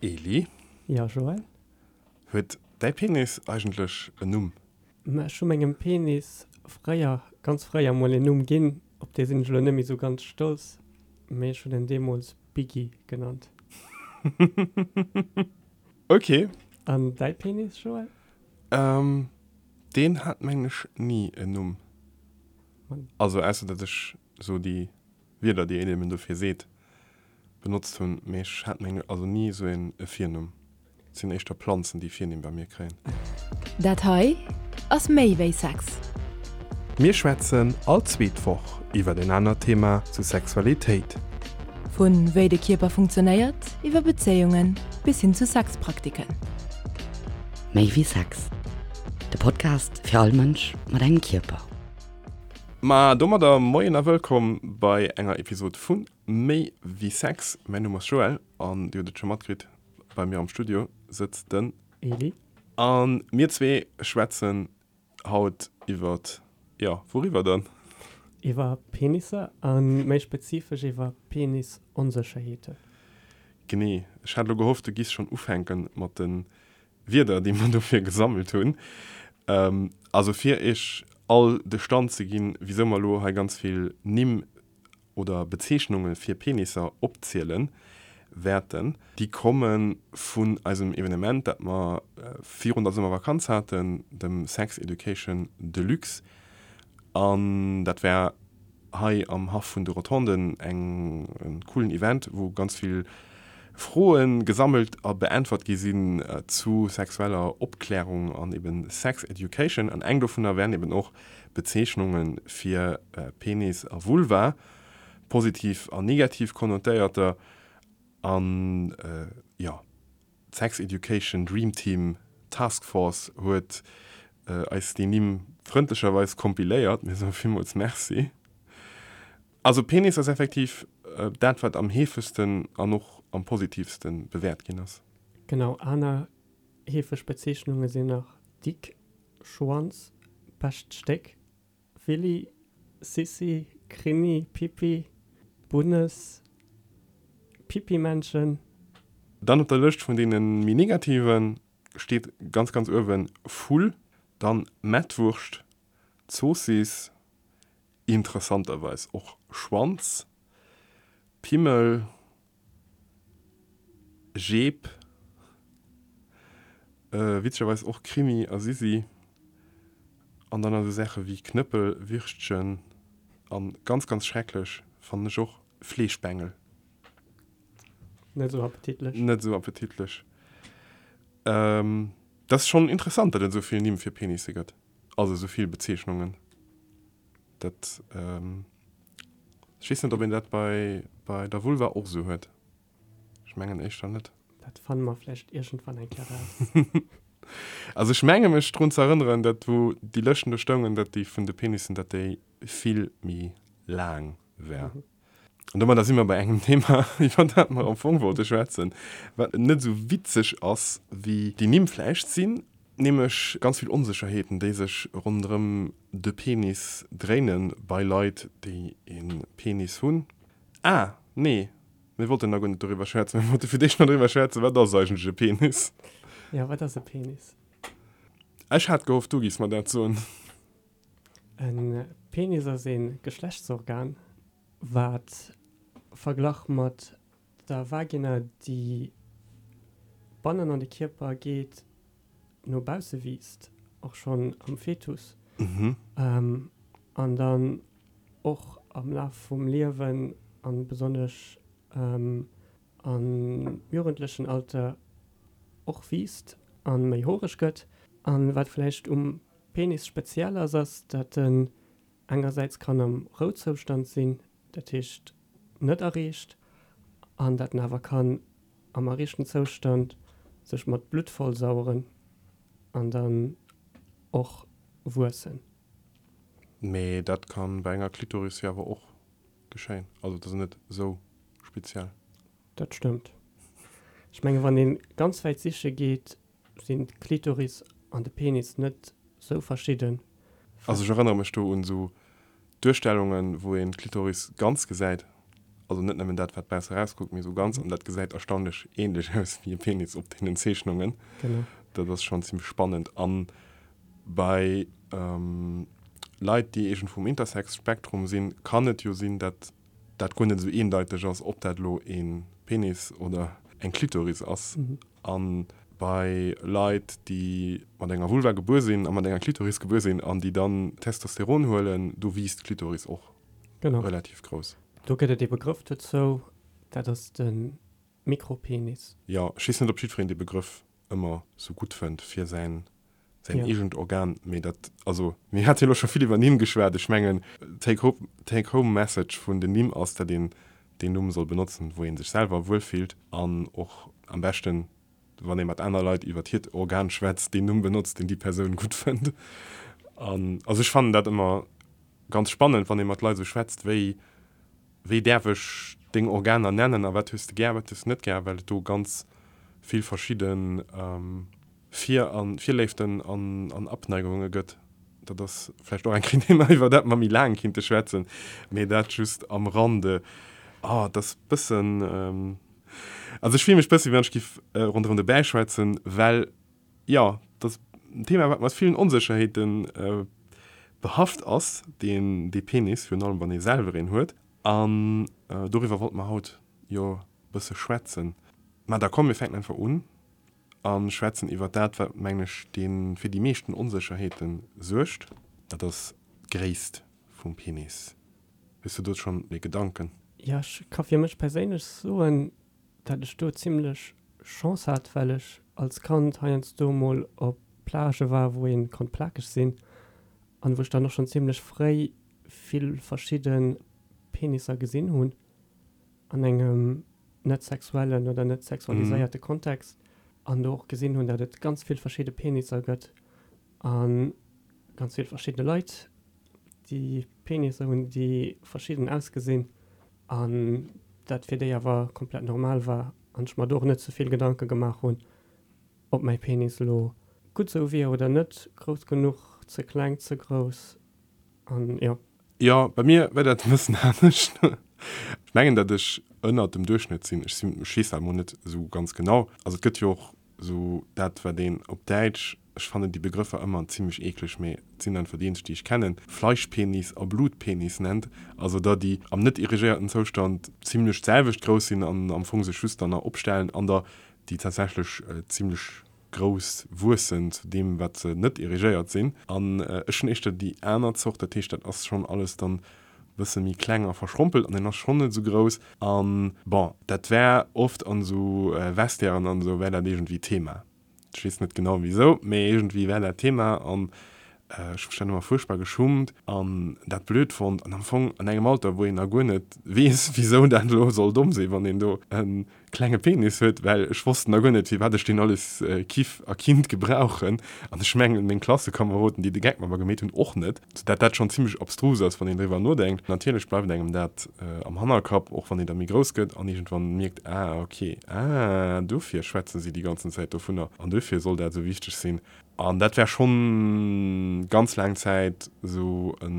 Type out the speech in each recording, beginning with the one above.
Eli? Jo, Joël? Huet däi Penis eigentlech en Numm? Ma ech hu mengem Penis fréier, ganz fréier mol en Numm ginn, op dee sinn ech elo net méi sou ganz stolz, mee ech hunn en deemools Biggie genannt. Ok. An däi Penis, Joël? Deen hat mengen ech ni en Numm. Also ausser datt ech sou déi Wierder déi een eben dofir seet benotzt hunn, mee ech hat meng also ni esou een e Virnumm. Et sinn éischter Planzen déi Virnimm bei mir kréien. Dat hei ass méi wéi Sex. Mir schwätzen all zweet Woch iwwert en anert Thema zu Sexualitéit. Vu wéi de Kierper funktionéiert, iwwer Bezéiungen bis hin zu Sexpraktiken. Méi wéi Sex, de Podcast fir all Mënsch mat engem Kierper. Ma domadder Moien a Wëllkomm bei enger Episod vu Méi wéi Sex. Mäin Numm ass Joël an dir hutt et scho matkritt, bei mir am Studio sëtzt den. Eli. A mir zwee schwätzen haut iwwert, jo, wouriwwer dann? Iwwer Penisser a méi spezifesch iwwer Penisonsécherheeten. Genee. Ech hat elo gehofft, du giss schonn ufänke mat de Wierder, déi mer dofir gesammelt hunn. Also fir Iech all de Stand ze ginn, wisou mer elo hei ganz vill Nimm oder Bezeechnunge fir Penisser opziele wäerten, déi komme vun eisem Evenement, dat mer virun der Summervakanz haten, dem Sex Education Deluxe. An dat war hei am Haff vun de Rotonden eng en coolen Event, wou ganz vill Froen gesammelt a beäntwert gi sinn zu sexueller Opklärung an eben Sex Education. An eng dovunner wären eben och Bezeechnunge fir Penis a Vulva, positiv an negativ konnotéierter. An jo. D'Sex Education Dream Team Task Force huet eis déi Nimm frëndlecherweis kompiléiert. Mir soe villmools Merci. Also Penis ass effektiv dat, wat am heefegsten an och am positivste bewäert ginn ass. Genau, aner heefeg Bezeechnunge sinn nach Dick, Schwanz, bescht Stéck, Willy, Sissi, Krini, Pippi, Bunnes, Pippimännchen. Dann op der Lëscht vun deene méi negative steet ganz ganz uewen Vull, dann Mettwurscht, Zoossiss, interessanterweis och Schwanz, Pimmel, Jeep, witzegerweis och Krimi a Sisi, an dann esou Saache wéi Knëppel, Würstchen an ganz ganz schrecklech fannen ech och Fleeschbengel. Net esou appetitlech. Net esou appetitlech. Dat ass schonn interessant, datt et esou vill Nimm fir Penisse gëtt, also esou vill Bezeechnungen. Dat, ech weess net, ob een dat bei, bei der Vulva och esou huet. Ech mengen éischter net. Dat fanne mer vläicht iergendwann eng Kéier raus. Also ech menge mech drun ze erënneren, datt wou déi Lëschten do stoungen, datt déi vun de Penissen, datt déi vill méi laang war. An domadder si mer bei engem Thema, iwwer dat mer am Fong wollte schwätzen, wat net esou witzeg ass wéi déi Nimm vläicht sinn, nämlech ganz vill Onsécherheeten, déi sech ronderëm de Penis dréinen bei Leit, déi e Penis hunn. Ah, nee, mir wollten nach guer net doriwwer schwätzen. Mir wollte fir d'éischt nach doriwwer schwätzen, wat ass eigentlech e Penis? Jo, wat ass e Penis? Ech hat gehofft, du giffs mer dat soen. E Penis ass e Geschlechtsorgan, wat verglach mat der Vagina, déi bannen an de Kierper geet, no bausse wiisst, och schonn am Fetus, an dann och am Laf vum Liewen a besonnesch am jugendlechen Alter och wiisst a méi horeg gëtt. A wat vläicht um Penis speziell ass, ass, datt en engersäits kann am Rouzoustand sinn, dat heescht net erreecht, an datt en awer kann am erreechten Zoustand sech mat Blutt vollsaueren an dann och wuessen. Mee dat kann bei enger Klitoris jo awer och geschéien, also dat ass net esou speziell. Dat stëmmt. Ech menge wann een ganz wäit siche geet, sinn d'Klitoris an de Penis net sou verschidden. Also ech erënnere mech do un esou Duerstellungen, wou een d'Klitoris ganz gesäit. Also net nëmmen dat, wat bausse erauskuckt, mee esou ganz. An dat gesäit erstaunlech änlech aus wéi e Penis op deenen Zeechnungen. Genau. Dat ass schonn zimmlech spannend. A bei Leit, déi iergendwou um Intersex-Spektrum sinn, kann et jo sinn, dat dat guer net esou eendeiteg ass, ob dat elo e Penis oder eng Klitoris ass. A bei Leit, déi mat enger Vulva gebuer sinn a mat enger Klitoris gebuer sinn an déi dann Testosteron huelen, do wiisst d'Klitoris och relativ grouss. Do gëtt et ee Begrëff dozou, dat ass de Mikropenis. Jo, ech weess net, ob jiddwereen dee Begrëff ëmmer sou gutt fënnt fir säin säin eegent Organ, mee dat, also mir hate jo elo scho vill iwwer Nimm geschwat, ech mengen take home, take home message vun den Nimm ass, datt een deen Numm soll benotzen, wou ee sech selwer wuel fillt an och am beschten, wann ee mat aner Leit iwwer hiert Organ schwätzt, deen Numm benotzt, deen déi Persoun gutt fënnt. An also ech fannen dat ëmmer ganz spannend, wann ee mat Leit esou schwätzt, wéi wéi däerf ech deng Organer nennen a wat hues de gär, wat hues de net gär, well et do ganz vill verschidde Vir a Virléiften an Abneigunge gëtt. Dat ass vläicht och eng Kéier en Thema, iwwer dat mer méi laang kinnte schwätzen, mee dat just am Rande. Oh, et ass bëssen, also ech fille mech bësse wéi wann ech giff ronderëm de Bäi schwätzen, well jo, dat ass en Thema, wat mat villen Onsécherheete behaft ass, deen, dee Penis, virun allem wann ee selwer een huet. An doriwwer wollte mer haut jo bësse schwätzen. Mä da komm, mir fänken einfach un a schwätzen iwwer dat, wat, mengen ech, dee fir déi meeschten Onsécherheete suergt. Dat ass d'Gréisst vum Penis. Hues du do schonn e Gedanken? Jo, ech ka fir mech perséinlech soen, dat ech do zimlech Chance hat, well ech als Kand heiansdo mol op Plagë war, wou ee konnt plakeg sinn an wou ech dann och schonn zimlech fréi vill verschidde Penisser gesinn hunn an engem net sexuellen oder net sexualiséierte Kontext an do och gesinn hunn, dat et ganz vill verschidde Penisser gëtt a ganz vill verschidde Leit, déi Penisser hunn, déi verschidden ausgesinn an dat fir déi awer komplett normal war an ech mer do och net ze vill Gedanke gemaach hunn, ob mäi Penis elo gutt sou wier oder net, grouss genuch, ze kleng, ze grouss an jo. Jo, bei mir war dat e bëssen anescht. Ech mengen, datt ech ënnert dem Duerchschnëtt sinn. Ech sinn, ech weess dat emol net esou ganz genau. Also et gëtt jo och esou dat, wat een op Däitsch, ech fannen déi Begrëffer ëmmer zimlech eekleg, mee et sinn einfach déi eenzeg, déi ech kennen, Fleischpenis a Blutpenis nennt. Also der, déi am net erigéierten Zoustand zimlech d'selwecht grouss sinn an am Fong sech just dann nach opstellen, an der, déi tatsächlech zimlech grouss wuessen zu deem wat se net erigéiert sinn. An ech hunn éischter déi aner Zort, dat heescht dat ass schonn alles dann e bësse méi kleng a verschrompelt an en ass schonn net esou grouss. An bon, dat war oft an esou Vestiairen an esou war dat iergendwéi Thema. Ech weess net genau wisou, mee iergendwéi war dat Thema an ech hu mech dann ëmmer fuerchtbar geschummt an dat blöd fonnt an am Fong an engem Alter wou een nach guer net weess wisou dat elo soll domm sinn, wann een do e klenge Penis huet, well ech wosst nach guer net, firwat ech deen alles kiff a kinnt gebrauchen. An ech mengen, meng Klassekameroden, déi de Geck mat mer gemeet hunn, och net. Sou dat dat schonn zimmlech abstrus ass, wann een driwwer nodenkt. Natierlech bleift engem dat am Hannerkapp, och wann een da méi grouss gëtt an iergendwann mierkt, ah ok, ah dofir schwätze si déi ganzen Zäit dovunner an dofir soll dat esou wichteg sinn. An dat war schonn ganz laang Zäit esou e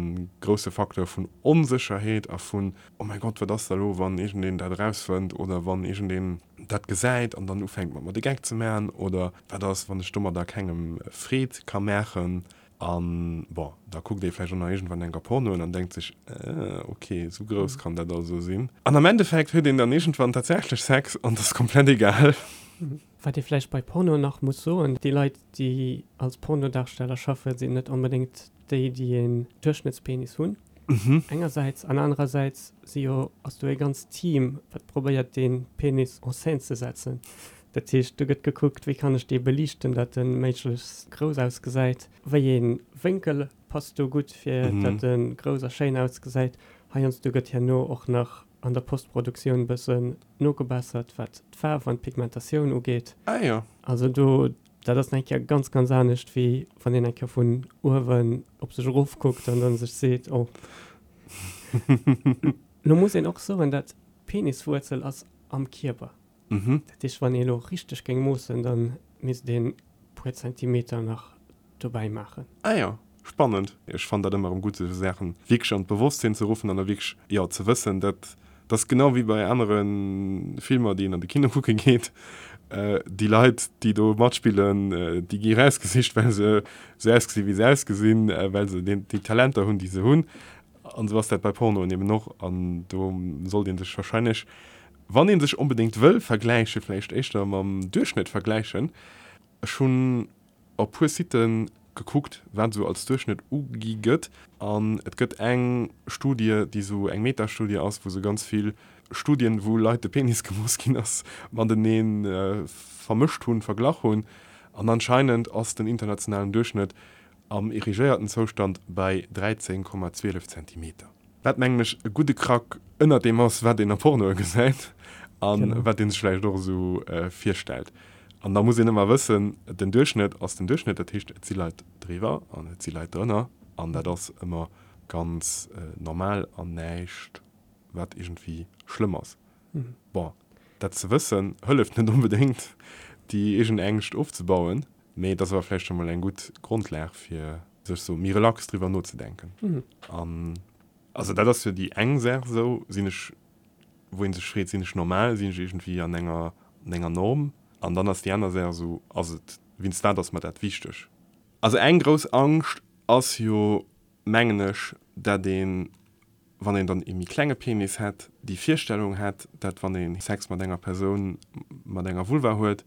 grousse Facteur vun Onsécherheet a vun, Oh mäi Gott, wat ass da elo, wann iergendeen dat erausfënnt oder wann iergendeen dat gesäit an dann ufänkt mat mer de Geck ze maachen oder wat ass, wann ech domadder kengem Freed ka maachen. An bon, da kuckt ee vläicht och nach iergendwann enker Pornoen an denkt sech, Äh, ok, esou grouss kann dat also sinn. An am Endeffekt huet een dann iergendwann tatsächlech Sex an et ass komplett egal. Wat ee vläicht bei Porno nach muss soen, déi Leit, déi als Pornodarsteller schaffen, sinn net onbedéngt déi, déi een Duerchschnëttspenis hunn, engersäits, an anerersäits si jo, ass do ee ganzt Team, wat probéiert, dee Penis en scène ze setzen. Dat heescht, do gëtt gekuckt, wéi kann ech dee beliichten, datt e méiglechst grouss ausgesäit, wéi ee Wénkel passt do gutt, fir datt e grouss a schéin ausgesäit. Heiansdo gëtt herno och nach an der Postproduktioun bëssen nogebessert, wat d'Faarf an d'Pigmentatioun ugeet. Ah jo. Also do, dat ass nach eng Kéier ganz, ganz anescht, wéi wann een eng Kéier vun uewen op sech erofkuckt an dann sech seet, oh. Lo muss een och soen, dat d'Peniswuerzel ass am Kierper. Dat heescht, wann ee lo richteg géing moossen, da misst een puer Zentimeter nach dobäi maachen. Ah jo, spannend. Ech fannen dat ëmmer erëm gutt, esou Saachen wierklech an d'Bewosstsinn ze ruffen an da wierklech, jo, ze wëssen, dat. Dat ass genau wéi bei anere Filmer, déi een an de Kino kucke geet. Déi Leit, déi do matspillen, déi gi erausgesicht, well se esou ausgesinn, wéi se ausgesinn, well se déi Talenter hunn, déi se hunn. An esou ass dat bei Pornoen eben och. An do sollt ee sech warscheinlech, wann ee sech onbedéngt wëll vergläichen, vläicht éischter mam Duerchschnëtt vergläichen. Ech hunn op puer Siten gekuckt, wat esou als Duerchschnëtt ugi gëtt. An et gëtt eng Studie, déi esou eng Metastudie ass, wou se ganz vill Studien, wou Leit de Penis gemooss ginn ass, matenee vermëscht hunn, verglach hunn. An anscheinend ass den internationalen Duerchschnëtt am erigéierten Zoustand bei 13,12 Zentimeter. Wat mengen ech e gudde Krack ënnert deem ass, wat een a Pornoe gesäit a wat ee sech vläicht och esou virstellt. An da muss een ëmmer wëssen, den Duerchschnëtt ass den Duerchschnëtt, dat heescht et si Leit driwwer an et si Leit drënner an dat ass ëmmer ganz normal an näischt wat iergendwéi schlëmm ass. Bon, dat ze wëssen hëlleft net onbedéngt déi eegen Ängscht ofzebauen, mee et ass awer vläicht scho mol eng gutt Grondlag fir sech sou méi relax driwwer nozedenken. An also dat ass jo déi eng Saach esou, sinn ech, wou ee sech freet, sinn ech normal, sinn ech iergendwéi an enger, an enger Norm? An dann ass déi aner Saach esou, ass et, wéinst wat ass mer dat wichteg? Also eng grouss Angscht ass jo, mengen ech, dat een, wann een dann ee méi klenge Penis hätt, déi Virstellung hätt, dat wann ee Sex mat enger Persoun mat enger Vulva huet,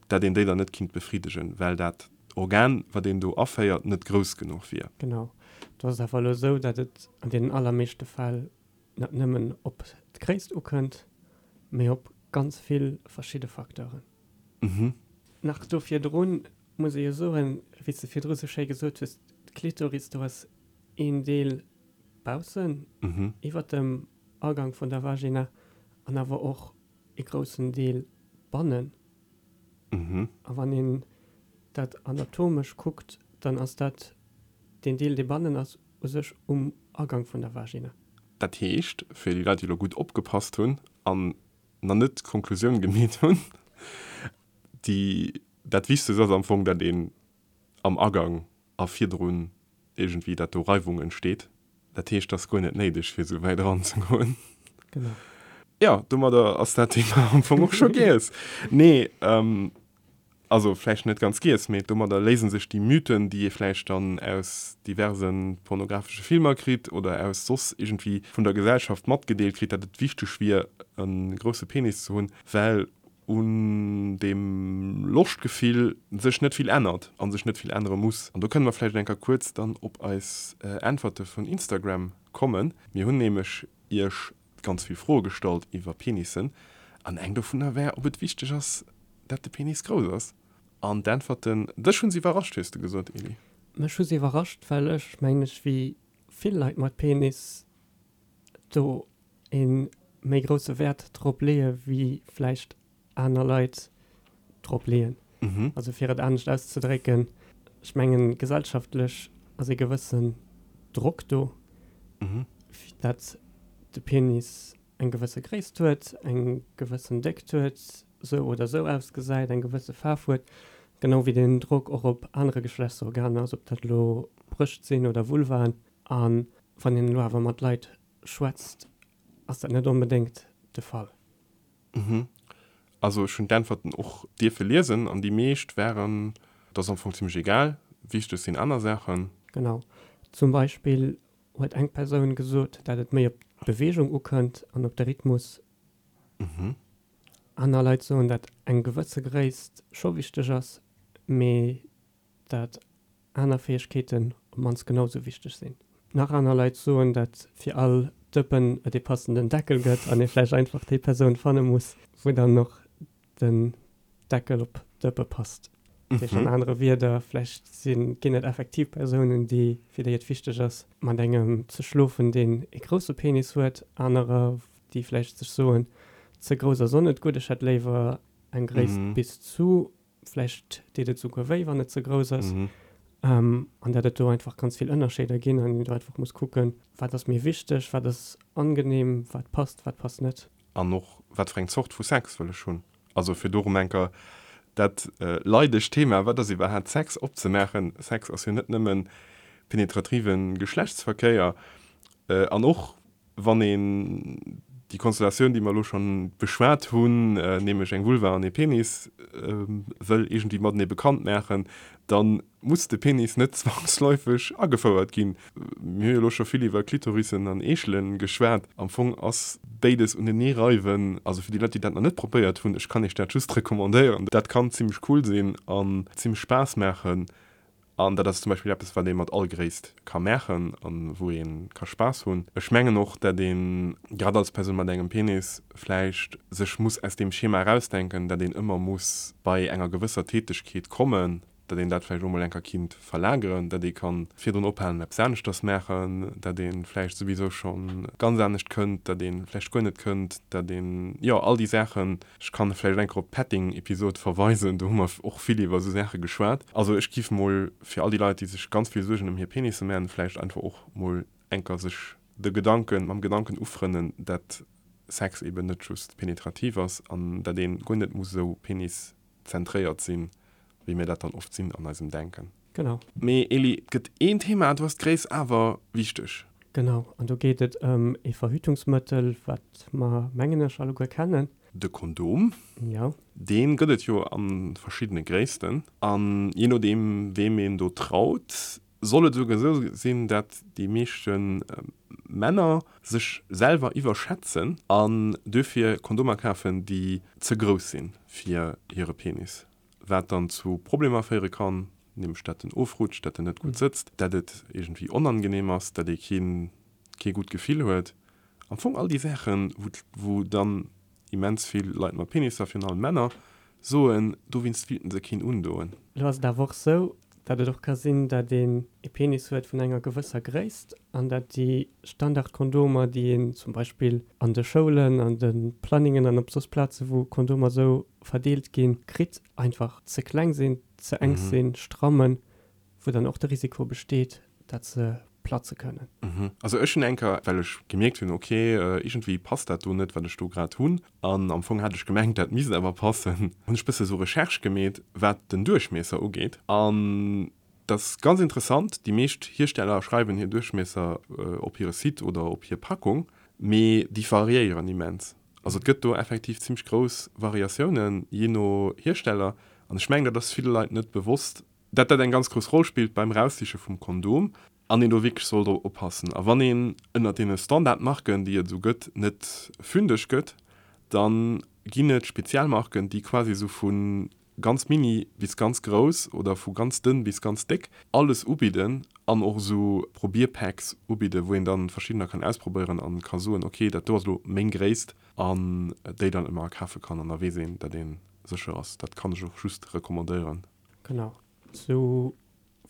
dat een déi dann net kinnt befriddegen, well dat Organ, wat een do aféiert, net grouss genuch wier. Genau. Do ass et awer elo esou, dat et an deenen allermeeschte Fäll net nëmmen op d'Gréisst ukënnt, mee op ganz vill verschidde Facteuren. Nach do virdrun muss ee jo soen, wéi s de virdru sou schéi gesot hues, d'Klitoris, do ass een Deel baussen, iwwer dem Agang vun der Vagina, an awer och ee groussen Deel bannen. A wann een dat anatomesch kuckt, dann ass dat deen Deel, dee bannen ass, u sech um Agang vun der Vagina. Dat heescht, fir déi Leit, déi elo gutt opgepasst hunn an nach net d'Konklusioun gemeet hunn, déi, dat Wichtegst ass am Fong, dat een am Agang a virdrun iergendwéi, dat do Reiwung entsteet. Dat heescht, et ass guer net néideg, fir esou wäit eranzegoen. Genau. Jo, domadder ass dat Thema am Fong och scho giess. Nee, also vläicht net ganz giess, mee domadder léise sech déi Mythen, déi ee vläicht dann aus diverse pornographesche Filmer kritt oder aus soss iergendwéi vun der Gesellschaft matgedeelt kritt, dat et wichteg wier, e grousse Penis ze hunn, well un deem Loschtgefill sech net vill ännert a sech net vill ännere muss. An do kënne mer vläicht eng Kéier kuerz dann op eis Äntwerte vun Instagram kommen. Mir hunn nämlech Iech ganz vill Froe gestallt iwwer Penissen an eng dovunner war, ob et wichteg ass, dat de Penis grouss ass. An d'Äntwerten, dech hu se iwwerrascht, hues de gesot, Elie. Mech hu se iwwerrascht, well ech, mengen ech, wéi vill Leit mat Penis do ee méi grousse Wäert drop leeë wéi vläicht aner Leit drop leeën. Also fir et anescht auszedrécken, ech mengen gesellschaftlech ass ee gewëssen Drock do, dat de Penis eng gewësse Gréisst huet, eng gewëssen Déckt huet, sou oder sou ausgesäit, eng gewësse Faarf huet, genau wéi deen Drock och op anere Geschlechtsorganer ass, ob dat elo Brëscht sinn oder Vulvaen. A wann een elo awer mat Leit schwätzt, ass dat net onbedéngt de Fall. Mhm. Also ech hunn d'Äntwerten och dierfe liesen an déi meescht waren, et ass am Fong zimmlech egal, wichteg sinn aner Saachen. Genau. Zum Beispill huet eng Persoun gesot, dat et méi op d'Beweegung ukënnt an op de Rhythmus. Aner Leit soen, dat eng gewësse Gréisst scho wichteg ass, mee dat aner Fäegkeeten op d'mannst genau sou wichteg sinn. Nach aner Leit soen, dat fir all Dëppen et ee passenden Deckel gëtt an ee vläicht einfach déi Persoun fanne muss, wou dann och den Deckel op d'Dëppe passt. Dat heescht an anere Wierder, vläicht sinn, ginn et effektiv Persounen, déi, fir déi et wichteg ass, mat engem ze schlofen, deen ee grousse Penis huet, anerer, déi vläicht sech soen, ze grouss ass och net gutt, ech hätt léiwer eng Gréisst bis zu. Vläicht deet et souguer wéi, wann et ze grouss ass. An dat et do einfach ganz vill Ënnerscheeder ginn an een do einfach muss kucken, wat ass mir wichteg, wat ass angenehm, wat passt, wat passt net. An och, wat fir eng Zort vu Sex wëll ech hunn? Also fir do erëm eng Kéier dat leidegt Thema, wat ass iwwerhaapt Sex, opzemaachen. Sex ass jo net nëmme penetrative Geschlechtsverkéier. An och wann een. déi Konstellatioun, déi mer elo schonn beschwat hunn, nämlech eng Vulva an ee Penis, wëll iergendwéi matenee bekannt maachen, da muss de Penis net zwangsläufeg agefouert ginn. Mir hu jo elo scho vill iwwer Klitorissen an Eechele geschwat. Am Fong ass béides unenee reiwen, also fir déi Leit, déi dat nach net probéiert hunn, ech kann iech dat just recommandéieren, dat kann zimmlech cool sinn an zimmlech Spaass maachen. An dat ass zum Beispill eppes, wat ee mat all Gréisst ka maachen a wou ee ka Spaass hunn. Ech mengen och, dat een, grad als Persoun mat engem Penis, vläicht sech muss aus deem Schema erausdenken, dat een ëmmer muss bei enger gewësser Tätegkeet kommen, dat een dat vläicht och mol enker kinnt verlageren, dat ee kann virdrun ophalen, eppes aneschters maachen, dat ee vläicht souwisou scho ganz anescht kënnt, dat ee vläicht guer net kënnt, dat een, jo, all déi Saachen. Ech kann vläicht enker op d'Petting-Episod verweisen, do hu mer och vill iwwer esou Saache geschwat. Also ech giff mol fir all déi Leit, déi sech ganz vill Suergen ëm hir Penisse man, vläicht einfach och mol enker sech de Gedanken, mam Gedanken ufrënnen, dat Sex eben net just penetrativ ass an dat een guer net muss esou Penis-zentréiert sinn, wéi mir dat dann oft sinn an eisem Denken. Genau. Mee Eli, et gëtt een Thema, do ass d'Gréisst awer wichteg. Genau, an do geet et ëm ee Verhütungsmëttel, wat mer, mengen ech, alleguer kennen. De Kondom. Jo. Dee gëtt et jo a verschiddene Gréissten. An jee nodeem, weem een do traut, soll et esouguer esou sinn, dat déi meeschte Männer sech selwer iwwerschätzen an duerfir Kondomer kafen, déi ze grouss si fir hire Penis. Wat dann zu Problemer féiere kann, nämlech dat en ofrutscht, dat en net gutt sëtzt, dat et iergendwéi onangenehm ass, dat ee keen, kee gutt Gefill huet. Am Fong all déi Saachen, wou, wou dann immens vill Leit mat Penisser, virun allem Männer, soen, dowéinst wéilten se keen undoen. Elo ass et awer och sou, dat et och ka sinn, dat een e Penis huet vun enger gewësser Gréisst an dat déi Standardkondomer, déi een zum Beispill an de Schoulen, an de Planningen an op soss Plaze wou Kondomer sou verdeelt ginn, kritt, einfach ze kleng sinn, ze enk sinn, strammen, wou dann och de Risiko besteet, dat se platze kënnen. Also ech hunn eng Kéier, well ech gemierkt hunn, ok, iergendwéi passt dat do net, wat ech do grad hunn, an am Fong hat ech gemengt, dat misst awer passen, hunn ech bësse sou Recherche gemeet, wat den Duerchmiesser ugeet. An dat ass ganz interessant, déi meescht Hiersteller schreiwen hir Duerchmiesser op hire Site oder op hir Packung, mee déi variéieren immens. Also et gëtt do effektiv zimmlech grouss Variatiounen, jee no Hiersteller. An ech mengen, dat ass ville Leit net bewosst, dat dat eng ganz grouss Roll spillt beim Eraussiche vum Kondom an een do wierklech soll drop oppassen. A wann een ënnert deene Standardmarken, déi et esou gëtt, net fündeg gëtt, da ginn et speziell Marken, déi quasi esou vu ganz mini bis ganz grouss oder vu ganz dënn bis ganz déck alles ubidden an och esou Probierpacks ubidden, wou een dann verschiddener kann ausprobéieren an ka soen, ok, dat do ass elo meng Gréisst an déi dann ëmmer akafe kann an da weess een, dat ee sécher ass. Dat kann ech och just recommandéieren. Genau, sou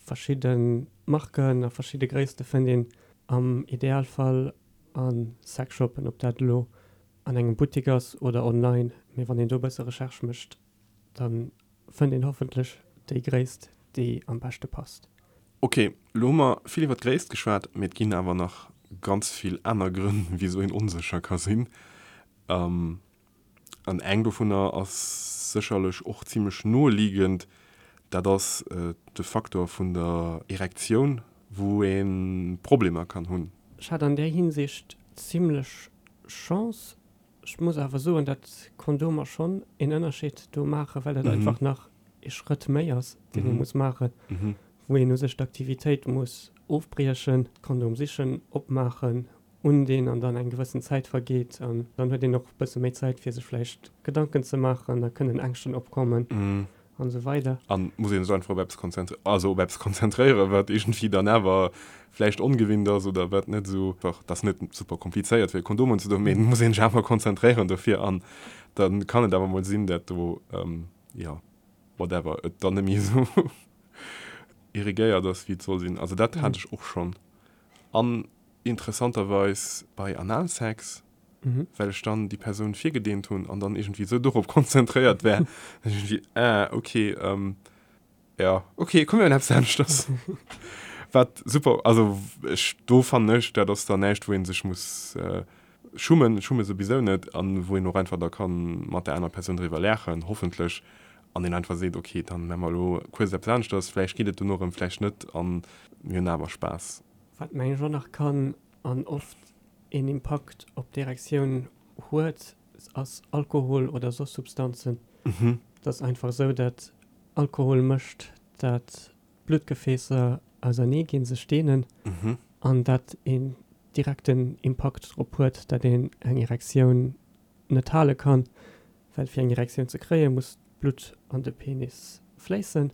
verschidde Marken a verschidde Gréisste fënnt een am Idealfall a Sexshoppen, ob dat elo an engem Buttik ass oder online. Mee wann een do e bësse Recherche mécht, da fënnt een hoffentlech déi Gréisst, déi am beschte passt. Ok, elo hu mer vill iwwer d'Gréisst geschwat, mee et ginn awer nach ganz vill aner Grënn, wisou een onsécher ka sinn. An eng dovunner ass sécherlech och zimlech noeliegend, dat ass de Faktor vun der Erektioun, wou ee Problemer kann hunn. Ech hat an där Hinsicht zimlech Chance. Ech muss awer soen, dat Kondomer schonn een Ënnerscheed do maachen, well dat einfach nach ee Schrëtt méi ass, deen ee muss maachen, wou een u sech d'Aktivitéit muss ofbriechen, d'Kondom sichen, opmaachen, undinn an dann eng gewëssen Zäit vergeet an dann huet een och e bësse méi Zäit fir sech vläicht Gedanken ze maachen, da kënnen Ängschten opkommen an esou weider. An muss een sech einfach op eppes konzentréieren, also op eppes konzentréieren, wat iergendwéi dann awer vläicht ongewinnt ass oder wat net esou, dat ass net super komplizéiert fir e Kondom unzedoen, mee et muss een sech awer konzentréieren dofir an da kann et awer mol sinn, dat do, jo, whatever, et dann net méi esou irrigéiert ass wéi et soll sinn. Also dat hat ech och schonn. An interessanterweis bei Analsex, well ech dann déi Persoun virgedeent hunn an dann iergendwéi esou dorop konzentréiert war, dass ech iergendwéi, ah, okay, ja, okay, komm mir hunn eppes aneschters. Wat super, also ech, do fannen ech, dat ass dann näischt, wou ee sech muss schummen, schumme souwisou net, an wou een och einfach da kann mat der anerer Persoun driwwer laachen, hoffentlech, an een einfach seet, okay, dann maache mer elo kuerz eppes aneschters, vläicht geet et dono erëm, vläicht net, an mir hunn awer Spaass. Wat mengen ech och nach kann an oft een Impakt op d'Erektioun. huet, ass Alkohol oder soss Substanzen. Et ass einfach esou, dat Alkohol mécht, dat d'Bluttgefäässer ausernee ginn, sech deenen, an dat een direkten Impakt drop huet, dat een eng Erektioun net hale kann, well fir eng Erektioun ze kréien, muss d'Blutt an de Penis fléissen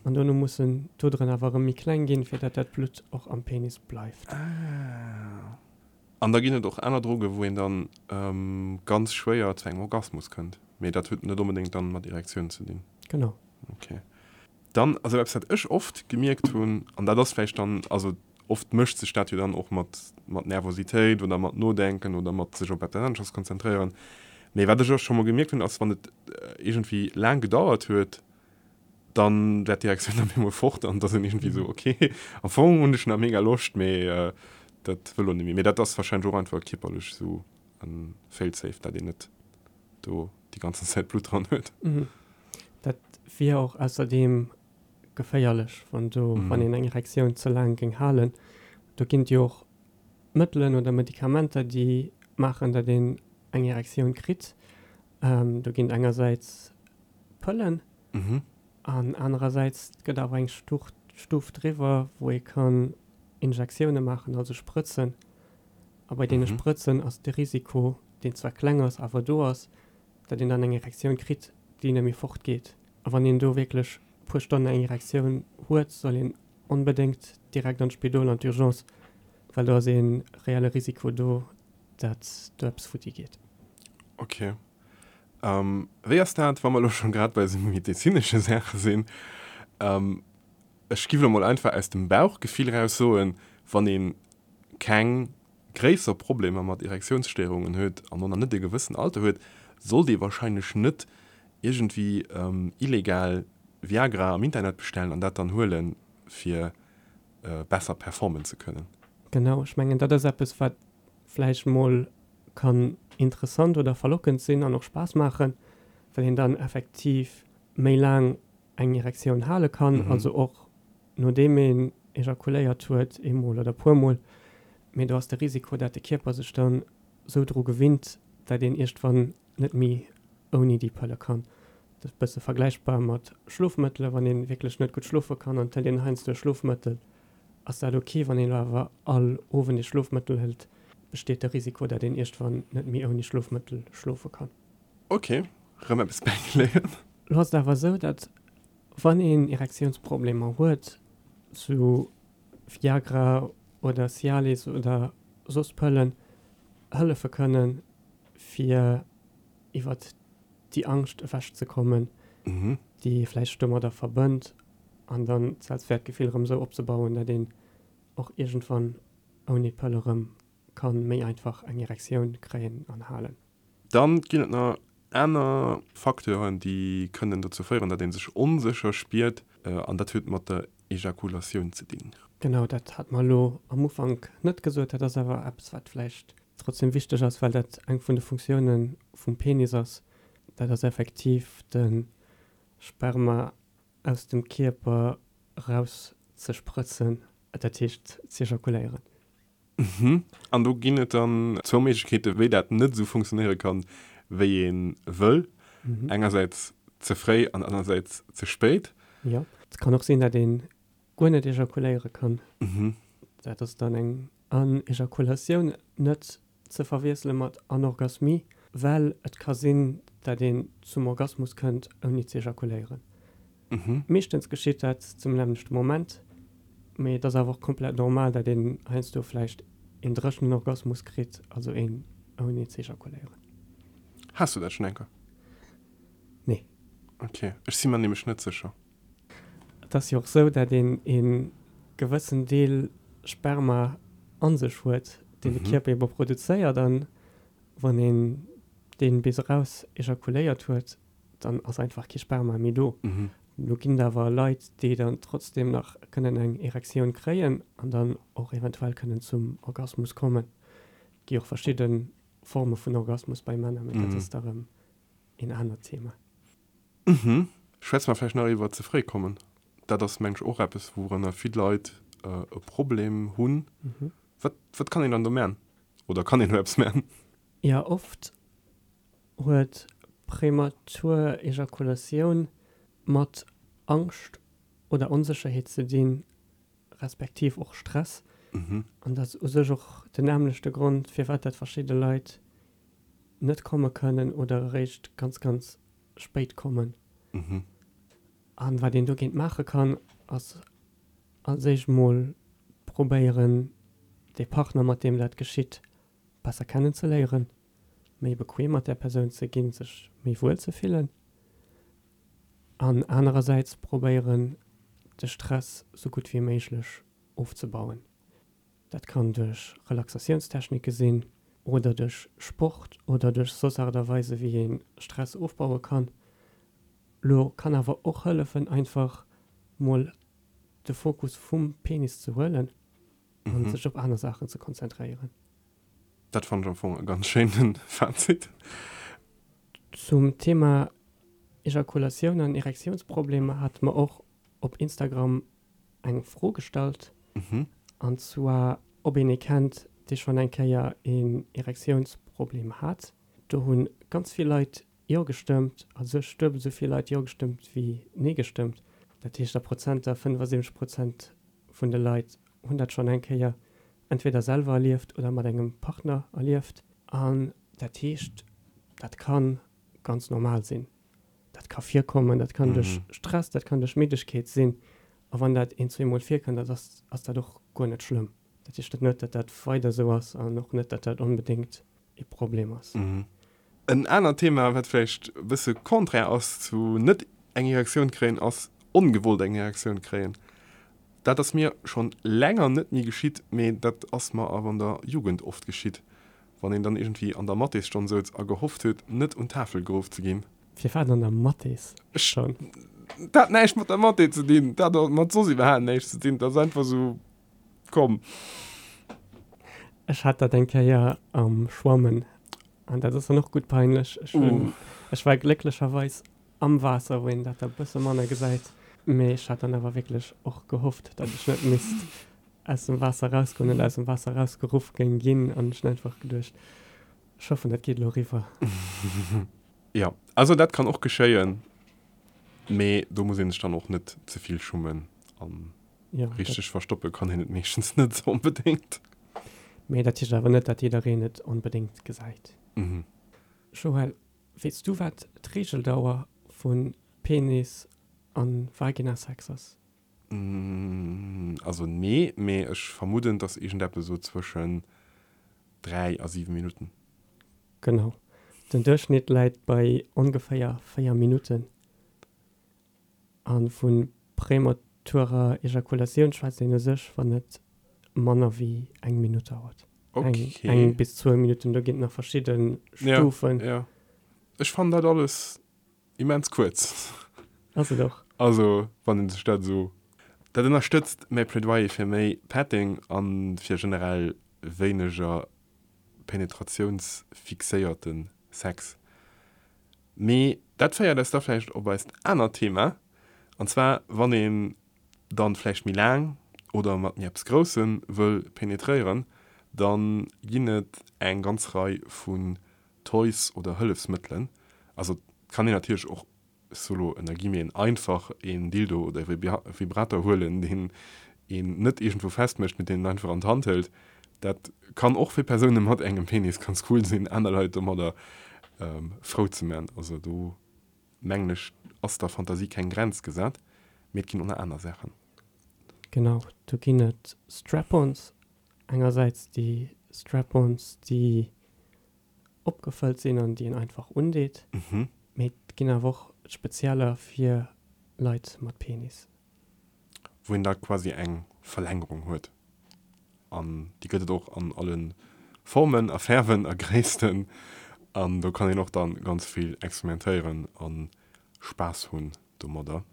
an dono mussen d'Oderen awer erëm méi kleng ginn, fir dat dat Blutt och am Penis bleift. Ah. An da ginn et och aner Drogen, wou een dann ganz schwéier zu engem Orgasmus kënnt, mee dat huet net onbedéngt dann mat Erektioun ze dinn. Genau. Okay. Dann, also eppes wat ech oft gemierkt hunn, an dat ass vläicht dann, also oft mëscht sech dat jo dann och mat, mat Nervositéit oder mat Nodenken oder mat sech op eppes aneschters konzentréieren, mee wat ech och scho mol gemierkt hunn, ass wann et iergendwéi laang gedauert huet, dann war d'Direktioun op eemol fort an da sinn iergendwéi esou, okay, am Fong hunn ech nach mega Loscht, mee dat wëll elo net méi. Mee dat ass wahrscheinlech och einfach kierperlech esou e Failsafe, dat een net do déi ganzen Zäit Blutt dran huet. Dat wier och ausserdeem geféierlech, wann do, wann een eng Erektioun ze laang géing halen. Do ginn et jo och Mëttelen oder Medikamenter, déi maachen, datt een eng Erektioun kritt. Do ginn et engersäits Pëllen an anerersäits gëtt awer eng Stuf driwwer, wou ee kann Injektioune maachen, also Sprëtzen. A bei deene Sprëtzen ass de Risiko, deen zwar kleng ass, awer do ass, datt een dann eng Erektioun kritt, déi net méi fortgeet. A wann een do wierklech e puer Stonnen eng Erektioun huet, soll een onbedéngt direkt an d'Spidol, an d'Urgence, well do ass ee reelle Risiko do, datt do eppes futti geet. Ok. Wéi ass dat, wa mer elo scho grad bei esou medezinesche Saache sinn? Ech giff elo mol einfach aus dem Bauchgefill raus soen, wann een keng gréisser Problemer mat Erektiounsstéierungen huet an och nach net e gewëssen Alter huet, sollt ee wahrscheinlech net iergendwéi illegal Viagra am Internet bestellen an dat dann huelen, fir besser performen ze kënnen. Genau, ech mengen dat ass eppes wat vläicht mol kann interessant oder verlockend sinn an och Spaass maachen, well een dann effektiv méi laang eng Erektioun hale kann, also och nodeem een ejakuléiert huet, eemol oder puermol, mee do ass de Risiko, dat de Kierper sech dann sou dru gewinnt, dat een iergdwann net méi ouni déi Pëlle kann. Dat ass e bësse vergläichbar mat Schlofmëttele, wann ee wierklech net gutt schlofe kann an et hëlt een heiansdo e Schlofmëttel, ass dat ok. Wann een elo awer all Owend ee Schlofmëttel hëlt, besteet de Risiko, dat een iergdwann net méi ouni Schlofmëttel schlofe kann. Ok, rëm eppes bäigeléiert. Lo ass et awer esou, datt wann een Erektiounsproblemer huet, sou Viagra oder Cialis oder soss Pëllen hëllefe kënnen, fir iwwert déi Angscht ewech ze kommen, déi ee vläicht domadder verbënnt, an dann d'Selbstwäertgefill erëm esou opzebauen, datt een och iergendwann ouni Pëll erëm ka méi einfach eng Erektioun kréien an halen. Dann ginn et nach aner Facteuren, déi kënnen dozou féieren, datt ee sech onsécher spiert, an dat huet mat der Ejakulatioun ze dinn. Genau, dat hat mer elo am Ufank net gesot. Dat ass awer eppes, wat vläicht trotzdem wichteg ass, well dat eng vun de Funktioune vum Penis ass. Dat ass effektiv de Sperma aus dem Kierper eraus ze sprëtzen, dat heescht z'ejakuléieren. Mhm. An do ginn et dann zwou Méiglechkeeten, wéi dat net esou funktionéiere kann, wéi ee wëll. Engersäits ze fréi an anersäits ze spéit. Jo. Et kann och sinn, dat ee guer net ejakuléiere kann. Dat ass dann eng Anejakulatioun, net ze verwiessele mat Anorgasmie, well et ka sinn, dat een zum Orgasmus kënnt, ouni ze ejakuléieren. Meeschtens geschitt dat zum nämmlechte Moment, mee et ass awer och komplett normal, dat een heiansdo vläicht een dréchenen Orgasmus kritt, also een ouni ze ejakuléieren. Has du dat schonn eng Kéier? Nee. Ok, ech si mer nämlech net sécher. Et ass jo och sou, dat een ee gewëssen Deel Sperma a sech huet, deen de Kierper ebe produzéiert, an wann een dee bis eraus ejakuléiert huet, dann ass einfach kee Sperma méi do. Do ginn et awer Leit, déi dann trotzdem nach kënnen eng Erektioun kréien an dann och eventuell kënnen zum Orgasmus kommen. Et gi och verschidde Forme vun Orgasmus bei Männer, mee dat ass da rëm een anert Thema. Schwätze mer vläicht nach iwwer ze fréi kommen. Dat ass, meng ech, och eppes, wourunner vill Leit e Problem hunn. Wat, wat kann een dann do man? Oder kann een do eppes man? Jo, oft. huet prematur Ejakulatioun mat Angscht oder Onsécherheet ze dinn, respektiv och Stress. An dat ass u sech och den nämmlechte Grond, firwat dat verschidde Leit net komme kënnen oder eréischt ganz, ganz spéit kommen. An wat een dogéint maache kann, ass als éischt mol probéieren, dee Partner, mat deem dat geschitt, besser kennenzeléieren, méi bequem mat där Persoun ze ginn, sech méi wuel ze fillen. An anerersäits probéieren, de Stress sou gutt wéi méiglech ofzebauen. Dat kann duerch Relaxatiounstechnike sinn oder duerch Sport oder duerch soss Aart a Weise wéi ee Stress ofbaue kann. Lo kann awer och hëllefen einfach mol de Fokus vum Penis ze huelen an sech op aner Saachen ze konzentréieren. Dat fannen ech am Fong e ganz schéinen Fazit. Zum Thema Ejakulatioun an Erektiounsproblemer hate mer och op Instagram eng Fro gestallt, an zwar ob een ee kennt, dee schonn eng Kéier een Erektiounsproblem hat. Do hu ganz vill Leit Jo gestëmmt, a sech duebel esou vill Leit Jo gestëmmt wéi Nee gestëmmt. Dat heescht a Prozenter, 75 Prozent vun de Leit hunn dat schonn eng Kéier entweder selwer erlieft oder mat engem Partner erlieft. An dat heescht, dat ka ganz normal sinn. Dat ka virkommen, dat kann duerch Stress, dat kann duerch Middegkeet sinn. A wann dat een, zweemol virkënnt, dat ass, ass dat och guer net schlëmm. Dat heescht dat net, datt dat weider esou ass an och net, datt dat onbedéngt ee Problem ass. En anert Thema, wat vläicht e bësse contraire ass zu net eng Erektioun kréien, ass ongewollt eng Erektioun kréien. Dat ass mir schonn länger net méi geschitt, mee dat ass mer awer an der Jugend oft geschitt, wann een dann iergendwéi an der Mathesstonn souz a gehofft huet, net un d'Tafel geruff ze ginn. Firwat an der Mathesstonn? Dat hat näischt mat der Mathé ze dinn, dat hat mat soss iwwerhaapt näischt ze dinn, dat ass einfach esou komm. Ech hat dat eng Kéier am Schwammen an dat ass dann och gutt peinlech. Ech hunn, ech war glécklecherweis am Waasser, wou een dat da bësse manner gesäit, mee ech hat dann awer wierklech och gehofft, datt ech net misst aus dem Waasser erausgoen oder aus dem Waasser erausgeruff géing ginn an ech hunn einfach geduecht, ech hoffen, dat geet elo eriwwer. Jo, also dat kann och geschéien, mee do muss een sech dann och net ze vill schummen an richteg verstoppe kann een et meeschtens net onbedéngt. Mee dat heescht awer net, datt jiddereen et onbedéngt gesäit. Joël, Weess du wat d'Reegeldauer vu Penis a Vaginasex ass? Also nee, mee ech vermudden et ass iergendeppes esou zwëschen 3 a 7 Minutten. Genau. Den Duerchschnitt läit bei ongeféier 4 Minutten. A vu prematurer Ejakulatioun schwätzt een u sech, wann et manner wéi eng Minutt dauert. Eng, eng bis zwou Minutten, do ginn et nach verschidde Stufen. Ja, ja. Ech fannen dat alles immens kuerz. Ass et och. Also, wann een sech dat esou. Dat ënnerstëtzt mäi Plädoyer fir méi Petting a fir generell wéineger penetratiounsfixéierte Sex. Mee dat féiert eis da vläicht op eist anert Thema, an zwar wann een dann vläicht méi laang oder mat méi eppes Groussem wëll penetréieren, dann ginn et eng ganz Rei vun Toys oder Hëllefsmëttelen. Also et kann een natierlech och ech soe lo ënner Guillemeten, einfach een Dildo oder e Vibrator huelen, deen een net iergendwou festmécht, mee deen een einfach an d'Hand hëlt. Dat kann och fir Persoune mat engem Penis ganz cool sinn, aner Leit domadder frou ze man. Also do mengen ech, ass der Fantasie keng Grenz gesat, mee et ginn och nach aner Saachen. Genau, do ginn et Strap-ons. Engersäits déi Strap-ons, déi opgefëllt sinn an déi een einfach undeet. Mee et ginn awer och spezieller fir Leit mat Penis. Wou een da quasi eng Verlängerung huet. An déi gëtt et och an alle Formen a Fäerwen a Gréissten. An do kann een och dann ganz vill experimentéieren a Spaass hunn domadder.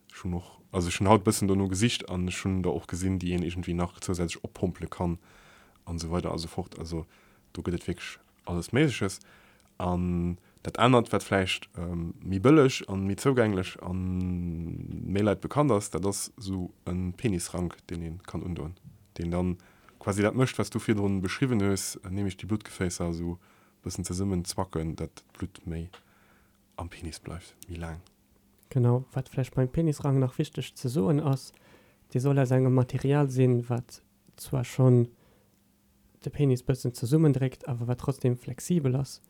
Ech hunn och, also ech hunn haut bëssen dono gesicht an ech hunn der och gesinn, déi een iergendwéi nach zousätzlech oppompele kann an esou weider a sou fort. Also do gëtt et wierklech alles Méigleches. An dat anert, wat vläicht méi bëlleg an méi zougänglech a méi Leit bekannt ass, dat ass esou e Penisrank, deen ee kann undoen, deen dann quasi dat mécht, wat s du virdrun beschriwwen hues, nämlech déi Bluttgeféisser esou. Bëssen zesummen zwacken, dat d'Blutt méi am Penis bleift, méi laang. Genau, wat vläicht beim Penisrang nach wichteg ze soen ass, dee soll aus engem Material sinn, wat zwar schonn de Penis bëssen zesummendréckt, awer wat trotzdem flexibel ass,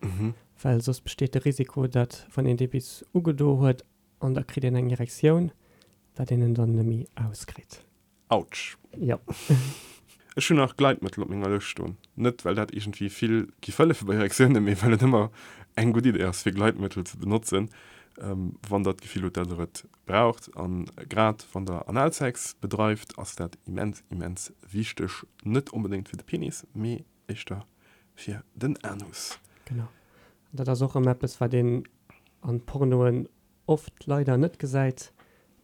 well soss besteet de Risiko, dat wann een dee bis ugedo huet an da kritt een eng Erektioun, dat een en dann neméi auskritt. Autsch. Jo. Ech hunn nach Gleitmëttel op menger Lëscht stoen. Net well dat iergendwéi vill giff hëllefe bei Erektiounen, mee well et ëmmer eng gutt Idee ass fir Gleitmëttel ze benotzen, wann der d'Gefill hutt, dat der et braucht. An grad wann der Analsex bedreift, ass dat immens, immens wichteg. Net onbedéngt fir de Penis, mee éischter fir den Anus. Genau. An dat ass och erëm eppes, wat een an Pornoen oft leider net gesäit.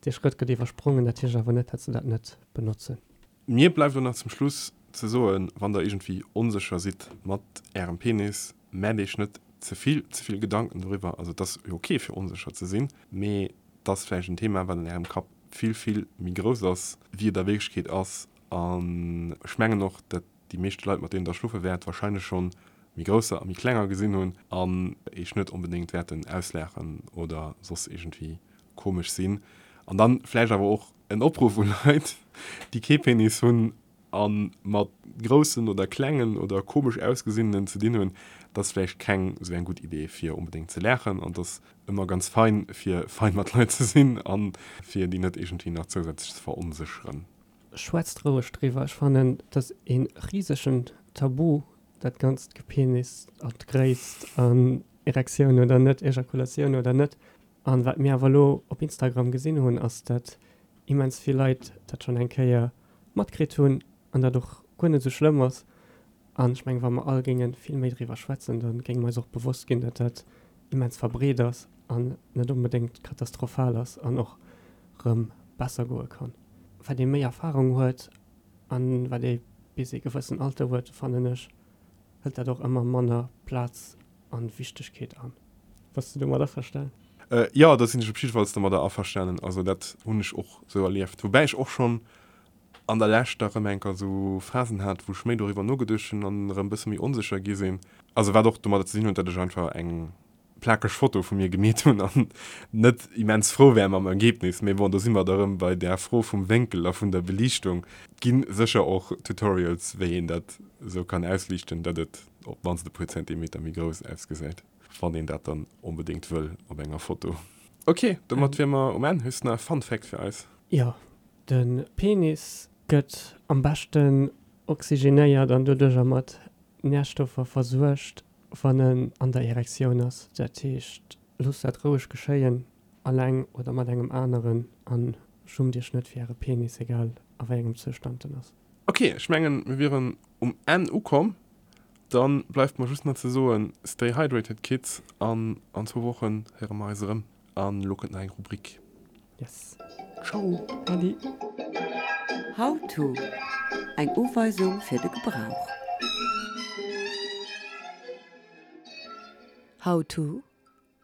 Dee Schrëtt gëtt iwwersprongen, dat heescht awer net, dat se dat net benotzen. Mir bleift elo nach zum Schluss ze soen, wann der iergendwéi onsécher sidd mat ärem Penis, maacht iech net ze vill ze vill Gedanken doriwwer. Also et ass jo ok fir onsécher ze sinn, mee et ass vläicht en Thema wat an ärem Kapp vill vill méi grouss ass wéi et a Wierklechkeet ass. An ech mengen och, dat déi meeschte Leit mat deenen der schloffe wäert wahrscheinlech schonn méi grousser a méi klenger gesinn hunn an eech net onbedéngt wäerten auslaachen oder soss iergendwéi komesch sinn. An dann vläicht awer och en Opruff u Leit, déi kee Penis hunn a mat groussen oder klengen oder komesch ausgesinnenen ze dinn hunn, et ass vläicht keng esou eng gutt Idee fir onbedéngt ze laachen an et ass ëmmer ganz fein fir fein mat Leit ze sinn a fir déi net iergendwéi nach zousätzlech ze veronsécheren. Schwätzt roueg driwwer. Ech fannen et ass ee risegen Tabu dat ganzt Gepenis an d'Gréisst an Erektioun oder net, Ejakulatioun oder net. An wat mir awer elo op Instagram gesinn hunn ass dat immens vill Leit dat schonn eng Kéier matkritt hunn an dat och guer net esou schlëmm ass. An ech mengen wa mer all géinge vill méi driwwer schwätzen, da géinge mer eis och bewosst ginn, dat dat immens verbreet ass an net onbedéngt katastrophal ass an och rëm besser goe kann. Wat ee méi Erfahrung huet an wat ee bis ee gewëssen Alter huet, fannen ech, hëlt dat och ëmmer manner Plaz an Wichtegkeet an. Bass de domat averstanen? Jo, do sinn ech op jiddefalls domadder averstanen. Also dat hunn ech och esou erlieft. Woubäi ech och schonn an der Lescht da rëm enker esou Phasen hat, wou ech méi doriwwer nogeduecht hunn an erëm e bësse méi onsécher gi sinn. Also wat och domadder ze dinn huet, datt ech einfach eng plakeg Foto vu mir gemeet hunn an net immens frou war mam Ergebnis. Mee bon, do si mer da rëm bei där Fro vum Wénkel a vun der Beliichtung. Et gi sécher och Tutorials, wéi een dat esou kann ausliichten, datt et op d'mannst e puer Zentimeter méi grouss ausgesäit, wann een dat dann onbedéngt wëll op enger Foto. Ok, domat wier mer um Enn. Hues de nach e Fun Fact fir eis? Jo, de Penis gëtt am beschten oxygenéiert an doduercher mat Närstoffer versuergt, wann en an der Erektioun ass. Dat heescht, loosst dat roueg geschéien, alleng oder mat engem aneren, an schummt iech net fir äre Penis, egal a wéi engem Zoustand en ass. Ok, ech mengen mir wieren um Enn ukomm. Dann bleift mer just nach ze soen, stay hydrated kids an an zwou Wochen héiere mer eis erëm. An elo kënnt nach eng Rubrik. Yes. Ciao. Adi. How to, Eng Uweisung fir de Gebrauch. How to,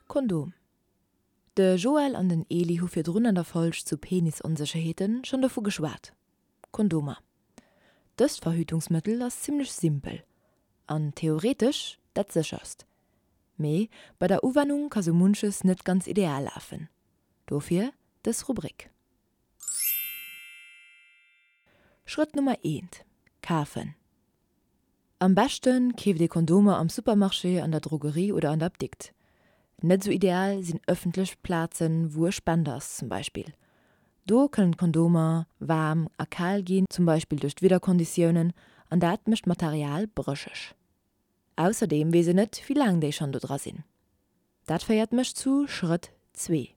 Kondom. De Joël an den Eli hu virdrun an der Folg zu Penisonsécherheeten schonn dovu geschwat, Kondomer. Dëst Verhütungsmëttel ass zimmlech simpel an theoretesch dat sécherst. Mee bei der Uwennung ka sou munches net ganz ideal lafen. Dofir dës Rubrik. Schrëtt Nummer eent, Kafen. Am beschte keeft ee Kondomer am Supermarché, an der Drogerie oder an der Apdikt. Net sou ideal sinn ëffentlech Plazen, wou e Spender ass zum Beispill. Do kënnen d'Kondomer waarm a kal ginn, zum Beispill duerch d'Wiederkonditiounen, an dat mécht d'Material brécheg. Ausserdeem weess een net, wéi laang déi schonn do dra sinn. Dat féiert mech zu Schrëtt zwee,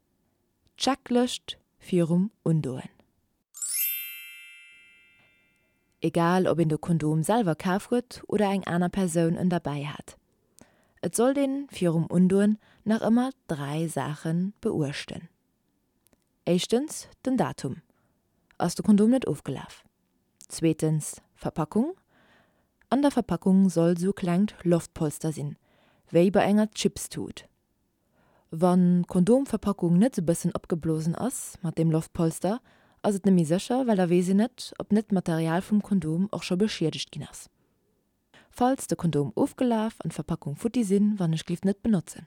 d'Checklëscht virum Undoen. Egal ob een de Kondom selwer kaf huet oder eng aner Persoun en derbäi hat, et sollt een virum Undoen nach ëmmer 3 Saache beuechten. Éischtens den Datum, ass de Kondom net ofgelaf? Zweetens Verpackung, an der Verpackung soll sou klengt Loftpolster sinn, wéi bei enger Chipstut. Wann d'Kondomverpackung net sou bëssen opgeblosen ass mat deem Loftpolster, ass et nemmi sécher, well da weess een net, ob net d'Material vum Kondom och scho beschiedegt ginn ass. Falls de Kondom ofgelaf an d'Verpackung futti sinn, wannechglift net benotzen.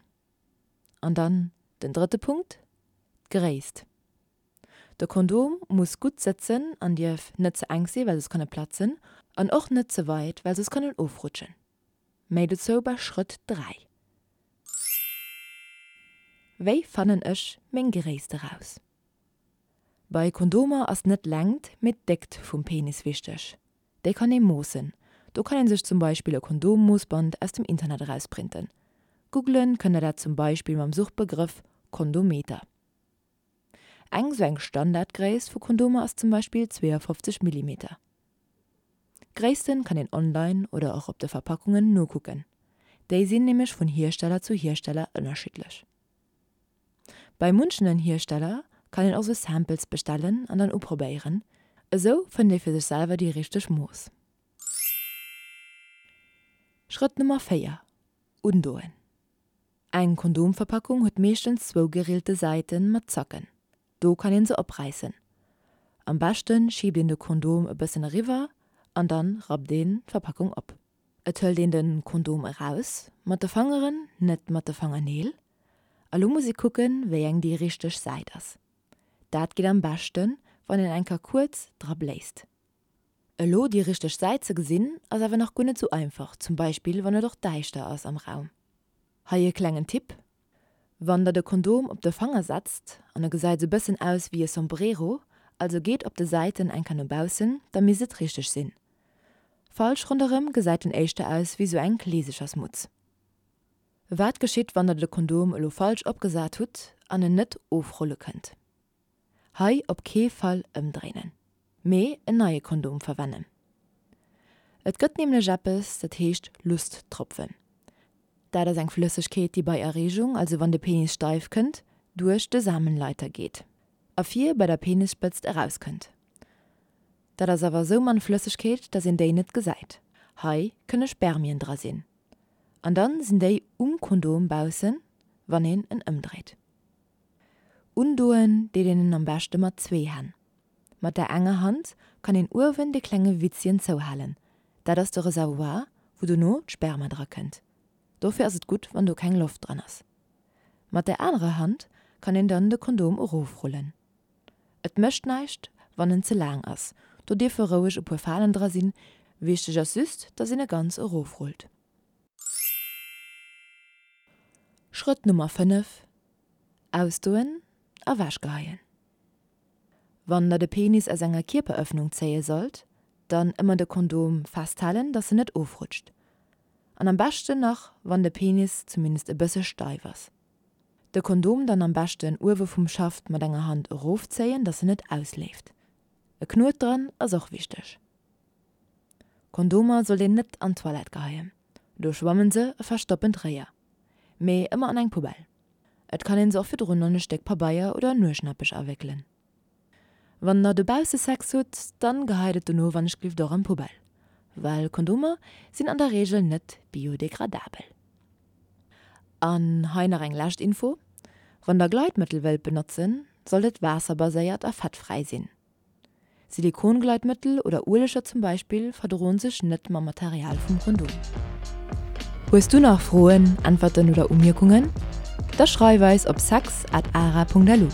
An dann den drëtte Punkt, d'Gréisst. De Kondom muss gutt sëtzen an dierf net ze enk sinn, well soss kann e platzen, an och net ze weit, well soss kann en ofrutschen. Méi dozou bei Schrëtt 3. Wéi fannen ech meng Gréisst eraus? Bei Kondomer ass net d'Längt, mee d'Déckt vum Penis wichteg. Déi kann ee moossen. Do kann een sech zum Beispill e Kondommoossband aus dem Internet erausprinten. Googlen kënnt der dat zum Beispill mam Suchbegrëff Kondometer. Eng sou eng Standardgréisst vu Kondomer ass zum Beispill 52 Millimeter. Gréissten kann een online oder och op de Verpackungen nokucken. Déi sinn nämlech vun Hiersteller zu Hiersteller ënnerschiddlech. Bei munchenen Hiersteller kann een och sou Samples bestellen an dann uprobéieren, esou fënnt ee fir sech selwer déi richteg Mooss. Schrëtt Nummer 4, Undoen. Eng Kondomverpackung huet meeschtens zwou gerillte Säiten mat Zacken, do kann een se opräissen. Am beschten schiebt een de Kondom e bëssen eriwwer an dann rappt een d'Verpackung op. Et hëlt een den Kondom eraus, mat de Fangeren, net mat de Fangerneel. A lo muss ee kucken, wéi eng déi richteg Säit ass. Dat geet am beschten, wann een eng Kéier kuerz dra bléist. Elo déi richteg Säit ze gesinn, ass awer nach guer net sou einfach, zum Beispill wann et och däischter ass am Raum. Hei e klengen Tipp, Wann der de Kondom op de Fanger setzt an e gesäit sou bëssen aus wéi e Sombrero, also geet op de Säiten eng Kéier no baussen, da misst et richteg sinn. Falsch ronderëm gesäit en éischter aus wéi sou eng Kleesechersmutz. Wat geschitt wann der de Kondom elo falsch opgesat hutt an en net ofrulle kënnt? Hei op kee Fall ëmdréinen, mee en neie Kondom verwennen. Et gëtt nämlech eppes dat heescht Lusttropfen. Dat ass eng Flëssegkeet déi bei Erreegung, also wann de Penis steif kënnt, duerch de Samenleiter geet a vir bei der Penisspëtzt erauskënnt. Dat ass awer esou mann Flëssegkeet, dass een déi net gesäit. Hei kënne Spermien dra sinn. An dann sinn déi um Kondom baussen, wann een en ëmdréit. Undoen deet een en am beschte mat zwee Hänn. Mat der enger Hand kann een uewen de klenge Witzchen zouhalen, dat ass de Reservoir, wou dono d'Sperma dra kënnt. Dofir ass et gutt, wann do keng Loft dran ass. Mat der anerer Hand kann een dann de Kondom erofrullen. Et mécht näischt wann en ze laang ass, do dierfe roueg e puer Falen dra sinn, wichteg ass just dass een e ganz erofrullt. Schrëtt Nummer 5, Ausdoen a wechgeheien. Wann der de Penis aus enger Kierperëffnung zéie sollt, dann ëmmer de Kondom festhalen dass en net ofrutscht. An am beschten nach wann de Penis zumindest e bësse steif ass. De Kondom dann am beschten uewe vum Schaft mat enger Hand erofzéien, dass en net ausleeft. E Knuet dran ass och wichteg. Kondomer sollt een net an d'Toilette geheien, do schwammen se a verstoppen d'Réier, mee ëmmer an eng Poubelle. Et kann een se och virdrun an e Stéck Pabeier oder Nueschnappech awéckelen. Wann der dobausse Sex hutt, dann geheit et dono wannechglift och an d'Poubelle, well Kondomer sinn an der Reegel net biodegradabel. An hei nach eng lescht Info, Wann der Gleitmëttel wëllt benotzen, sollt et waasserbaséiert a fettfräi sinn. Silikongleitmëttel oder Ueleger zum Beispill verdroen sech net mam Material vum Kondom. Hues du nach Froen, Äntwerten oder Umierkungen? Da schreif eis op sex at ara.lu.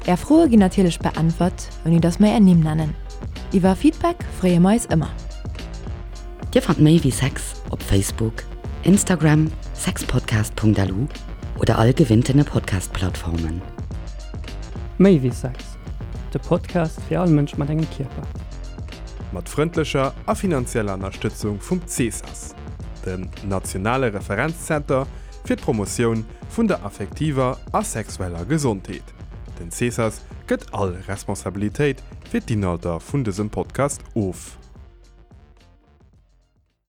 Är Froe ginn natierlech beäntwert, ouni dass mer är Nimm nennen. Iwwer Feedback freeë mer eis ëmmer. Dir fannt méi wéi Sex op Facebook, Instagram, sexpodcast.lu oder all gewinntene Podcast-Plattformen. Méi wéi Sex, de Podcast fir all Mënsch mat engem Kierper. Mat frëndlecher a finanzieller Ënnerstëtzung vum CESAS, dem nationale Referenzzenter fir d'Promotioun vun der affektiver a sexueller Gesondheet. Den CESAS gëtt all Responsabilitéit fir d'Inhalter vun dësem Podcast of.